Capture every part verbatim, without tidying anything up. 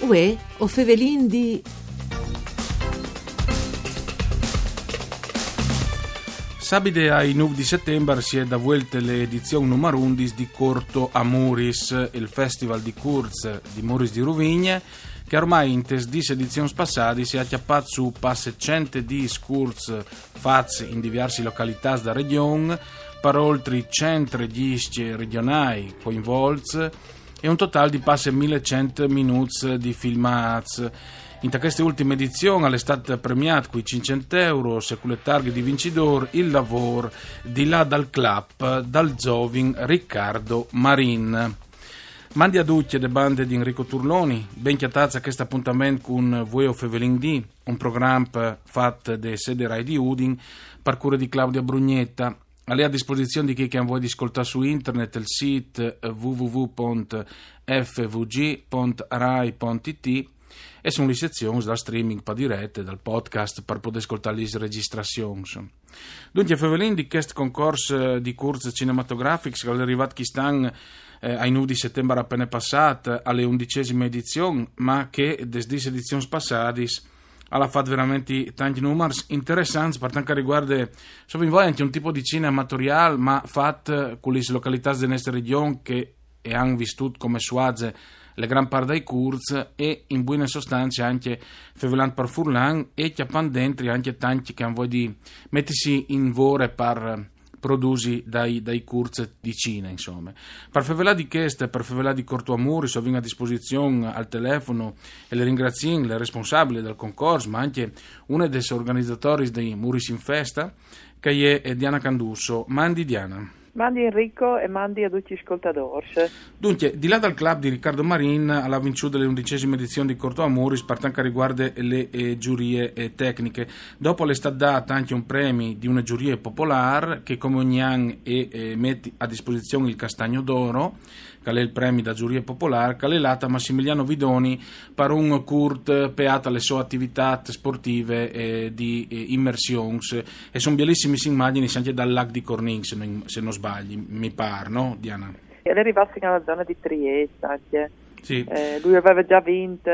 Uè, o fevelin di... Sabide ai nûf di setembar si è da vuelte le edizion numar undis di Corto a Muris, il festival di curts di Muris di Ruvigne, che ormai in tes dîs edizions passadis si è acciappat su passe cent e dîs curts fats in diversi localitâts da region, par oltri cent regjiscj regionâi coinvolts e un total di passe mil e cent minûts di filmâts. Inta cheste ultime edizion al è stât premiât cui cinccent euros e cu le targhe di vincidôr il lavôr Di là dal clap dal zovin Riccardo Marin. Mandi a ducj de bande di Enrico Turloni, ben cjatâts a chest apontament cun Vuê o fevelin di, un program fat de sede Rai di Udin, par cure di Claudia Brugnetta. Al è a disposizion di chei che a àn voie di scoltâ su internet, il sît w w w pont f v g pont rai pont i t, e sun lis sezions dal streaming par direte, dal podcast, par podê scoltâ lis registrazions. Duncje, fevelìn di chest concors, eh, di curts cinematografics che al è rivât chist an, eh, ai nûf di setembar apene passât, a le undicesime edizion, ma che des dîs edizions passadis al à fat verementri tancj numars interessants, par tant che al rivuarde, insome, in voi ancje un tipo di cine amatoriâl, ma fat cu lis localitâts de nestre region che e àn vistût come suaze le gran part dai curts e, in buine sostance, ancje fevelant par furlan e cjapant dentri ancje tancj che a àn voie di metisi in vore par produsi dai, dai curts di cine, insome. Par fevelâ di chest, par fevelâ di Corto a Muris, o vin a disposizion al telefono e le ringraziìn le responsabile dal concors, ma ancje une des organizatoris dai Muris in Festa, che e je Diana Candusso. Mandi Diana. Mandi Enrico e mandi a ducj i scoltadôrs. Duncje, Di là dal clap di Riccardo Marin al à vinçût le undicesime edizion di Corto a Muris par tant che al rivuarde le, eh, zurie, eh, tecniche. Dopo al è stât dât ancje un premi di une zurie popolâr che, come ogni an, e, eh, met a disposizion il Castagno d'Oro, che al è il premi da zurie popolâr, che al è lât a Massimiliano Vidoni par un curt peât a le sô ativitât sportive, eh, di, eh, imersions. E son bielissimis imagjinis ancje dal lâc di Cornin, se no, se no sbagli, mi pâr, no, Diana? E al è rivât fin a la zone di Triest ancje. Sì. Eh, lui al veve za vint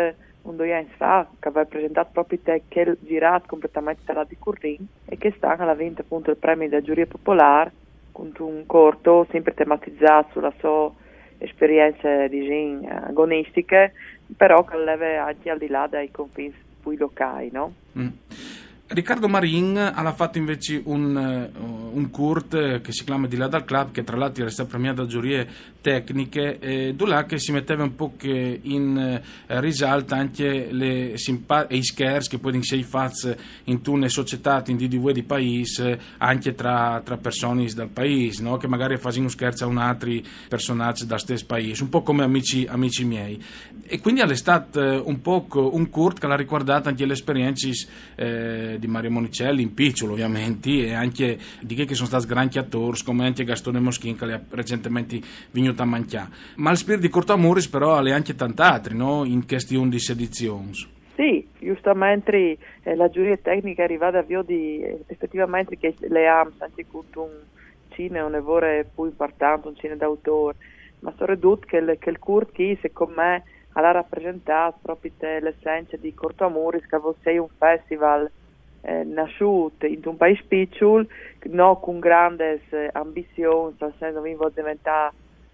un doi agns fa, che al veve presentât propit chel zirât completamente tal lâc di Cornin, e chest an al à vint apont il premi da zurie popolâr cuntun cort simpri tematizât su la sô esperience, disìn, agonistiche, però che al leve ancje al di là dai confins plui locâi, no? Mm. Riccardo Marin al à fat invezit un, eh, un curt, eh, che si clame Di là dal clap, che tra l'altri al è stât premiât da zurie tecniche, eh, dulà che si meteve un pôc, eh, in, eh, risalt ancje le simpa-, e i scherçs che a puedin sei fats intune societât, in dì di vuê, di paîs, eh, ancje tra, tra personis dal paîs, no? Che magari a fasin un scherç a un altri personaç dal stes paîs, un pôc come Amici, amici miei. E cuindi al è stât, eh, un pôc un curt che al à ricuardât ancje lis esperiencis, eh, di Mario Monicelli, in piçul ovviamentri, e ancje di chei che a son stâts grancj atôrs, come ancje Gastone Moschin, che al è recentementri vignût a mancjâ. Ma il spirti di Corto a Muris però al è ancje tant altri, no? In chestis undis edizions. Sì, justamentri, eh, la zurie tecniche e je rivade a viodi, eh, efetivamentri chei leams ancje cuntun cine une vore plui impuartant, un cine d'autôr, ma soredut chel, chel curt chi, secont me, al à rapresentât propit, eh, l'essence di Corto a Muris, che al vûl sei un festival, eh, nassût intun paîs piçul, no cun grandis, eh, ambizions, tal sens, no vin voie di deventâ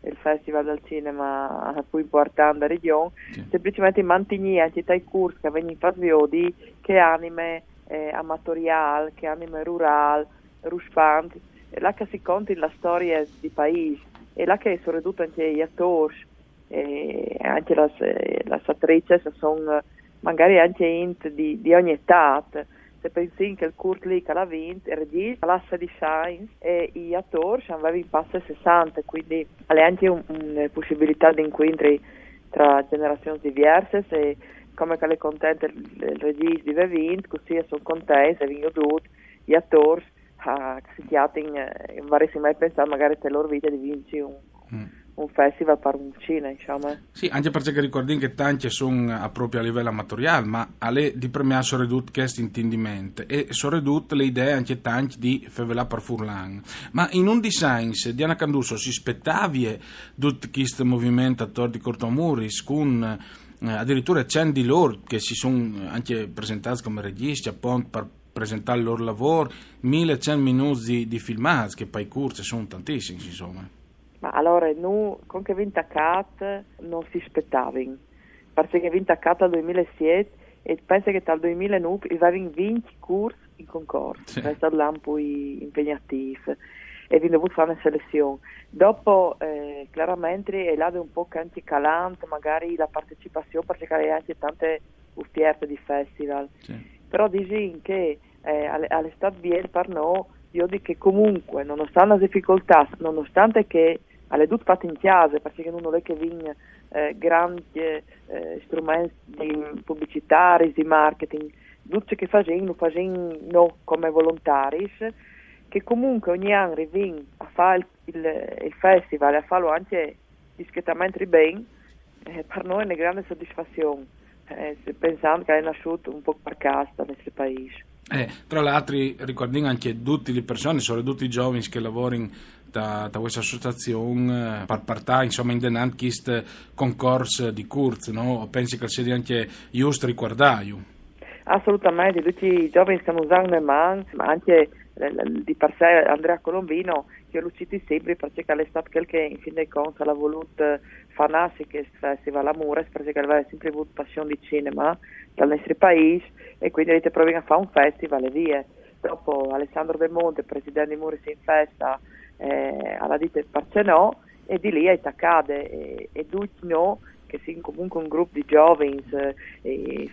il festival dal cinema plui impuartant da region, sì, semplicementri mantignî ancje tai curts che a vegnin fats viodi chê anime, eh, amatoriâl, chê anime rurâl, ruspant, e là che si contin lis storiis di paîs, e là che soredut ancje i atôrs, e ancje lis, eh, lis atricis a son, eh, magari ancje int di, di ogni etât. Se pensìn che il curt li che al à vint, il regjist al à sedis agns e i atôrs a vevin passe sessante, cuindi al è ancje un, une pussibilitât di incuintri tra gjenerazions diviersis e, come che al è content il, il regjist di vê vint, cussì a son contents e a vin jodût i atôrs a, che si cjatin, eh, no varessin mai pensât magari te lôr vite di vinci un, mm, un festival par un cine, insome. Sì, ancje parcè che ricuardìn che tancj a son, eh, propit a livel amatoriâl, ma al è di premiâ soredut chest intindiment e soredut le idee ancje tancj di fevelâ par furlan. Ma in undis agns, Diana Candusso, si spetavie dut chest moviment ator di Corto a Muris, cun eh, addirittura cent di loro che si sono, eh, anche presentati come registi, appunto, per presentare il loro lavoro, mille e cento minuti di, di filmati, che poi corti sono tantissimi, insomma. Ma allora, nu, con che vin taccat non si aspettavin, perché vin taccat dal duemilasette e penso che dal duemilanove i avevin vinti corsi in concorso, sì. È stato l'anno più impegnativo e vin dovuto fare una selezione. Dopo, eh, chiaramente, è là un po' che anche calante, magari la partecipazione, perché c'è anche tante offerte di festival. Sì. Però dici che eh, al, al è stat biel per noi, io dico che comunque, nonostante le difficoltà, nonostante che al è tutto fatto in casa, perché non è che vin eh, grandi eh, strumenti di pubblicità, di marketing, tutto ciò che facciamo, lo facciamo noi come volontari, che comunque ogni anno arriviamo a fare il, il, il festival e a farlo anche discretamente bene, eh, per noi è una grande soddisfazione, eh, pensando che è nasciuto un po' per casa nel nostro paese. Eh, tra l'altro, ricordiamo anche tutte le persone, soprattutto i giovani che lavorano da, da questa associazione, eh, per portare, insomma, in denant questo concorso di corti, no? Pensi che sia anche giusto ricordarlo? Assolutamente, tutti i giovani che non sanno man, ma anche eh, di per sé Andrea Colombino, che lo citi sempre perché è stato quel che in fin dei conti ha voluto far nascere questo festival a Mures, perché aveva sempre avuto passione di cinema dal nostro paese e quindi ha detto: "Proviamo a fare un festival e via." Dopo Alessandro Del Monte, presidente di Mures in Festa, eh, ha detto: "Perché no?" E di lì è attaccate e, e tutti noi, che siamo comunque un gruppo di giovani, eh,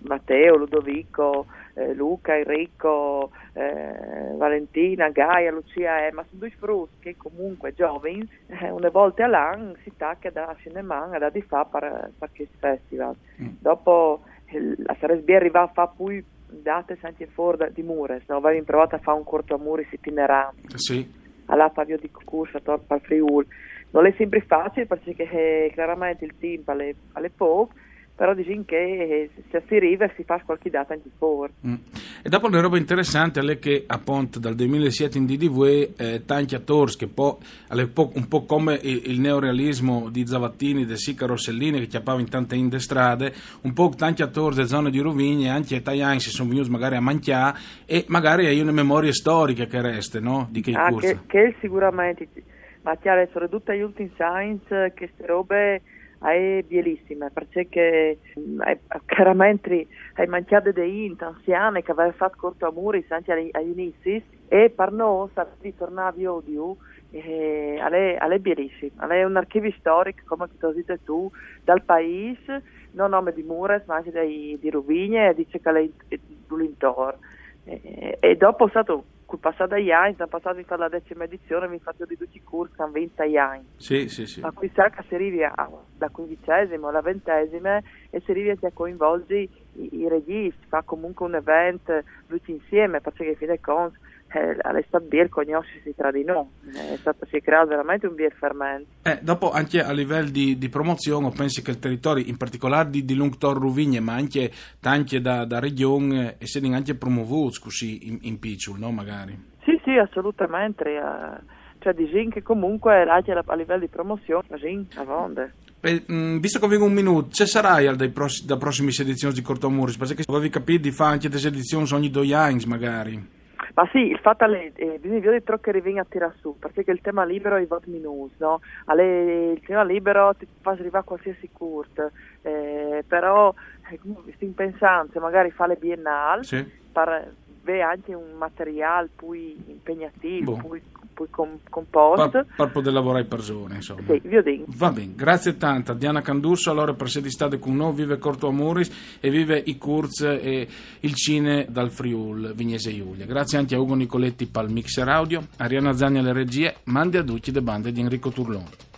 Matteo, Ludovico, eh, Luca, Enrico, eh, Valentina, Gaia, Lucia, eh, ma sono due frutti che comunque giovani, eh, una volta all'anno si tacca da cinema, da di fa per, per questo festival. Mm. Dopo eh, sarebbe arrivata a fare più date anche fuori di Mures, no? Avevamo provato a fare un corto a Mures itinerante. Sì. Alla Fabio di Cucurcia, per Friul. Non è sempre facile perché eh, chiaramente il tempo è, è poco, però diciamo che eh, se si arriva si fa qualche data anche fuori. Mm. E dopo una roba interessante è che appunto dal duemilasette in D D V eh, tanti attori che poi un po' come il, il neorealismo di Zavattini, De Sica, Rossellini che chiappava in tante in strade, un po' tanti attori delle zone di Ruvigna, anche italiani si sono venuti magari a mangiare e magari hai una memoria storica che resta, no? Di che ah, corsa. Che, che sicuramente, ma chiaro, soprattutto agli ultimi science, queste robe è bellissima, perché che, è, chiaramente hai mangiato dei int anziane che aveva fatto corto a Mures anche agli, agli inizi e per noi ritornare a odio eh, è, è bellissimo, è un archivio storico, come che tu hai detto tu, dal paese, non nome di Mures, ma anche dei, di Ruvigna e dice che è l'intorno. E, e dopo è stato, col passare degli anni, sono passati fino alla decima edizione, mi faccio di tutti i corsi, sono venti anni. Sì, sì, sì. Ma qui sa che si arriva da quindicesimo alla ventesima e si arriva anche a coinvolgere i, i registi, fa comunque un evento tutti insieme, perché in fin dei conti eh, è stato bel conoscersi tra di noi, è stato, si è creato veramente un bel fermento. Eh, dopo anche a livello di, di promozione, penso che il territorio, in particolare di, di Lungtor Ruvigne, ma anche tante da, da regione, eh, siano anche promovuti così in, in piccolo, no? Magari. Sì, sì, assolutamente. Eh, cioè, diciamo che comunque anche a livello di promozione, sì, a vonde. E, mm, visto che abbiamo un minuto, ci sarà dai pross- da prossime edizioni di Corto a Mures? Perché avevi capito di fare anche delle edizioni ogni due anni, magari. Ma sì, il fatto è che eh, bisogna vedere ciò che arriva a tirare su, perché il tema libero è vot minus, no? Allora, il tema libero ti fa arrivare a qualsiasi corto, eh, però eh, stiamo pensando se magari fare le biennale sì. Per avere anche un materiale più impegnativo, boh. più, più com- composto. Per, per poter lavorare persone, insomma. Sì, vi dico. Va bene, grazie tanta. Diana Candusso, allora, per essere stata con noi, vive Corto a Mures e vive i corsi e il cine dal Friul, Vignesia Julia. Grazie anche a Ugo Nicoletti per il mixer audio, Arianna Zani alle regie, mandi a tutti da bande di Enrico Turloni.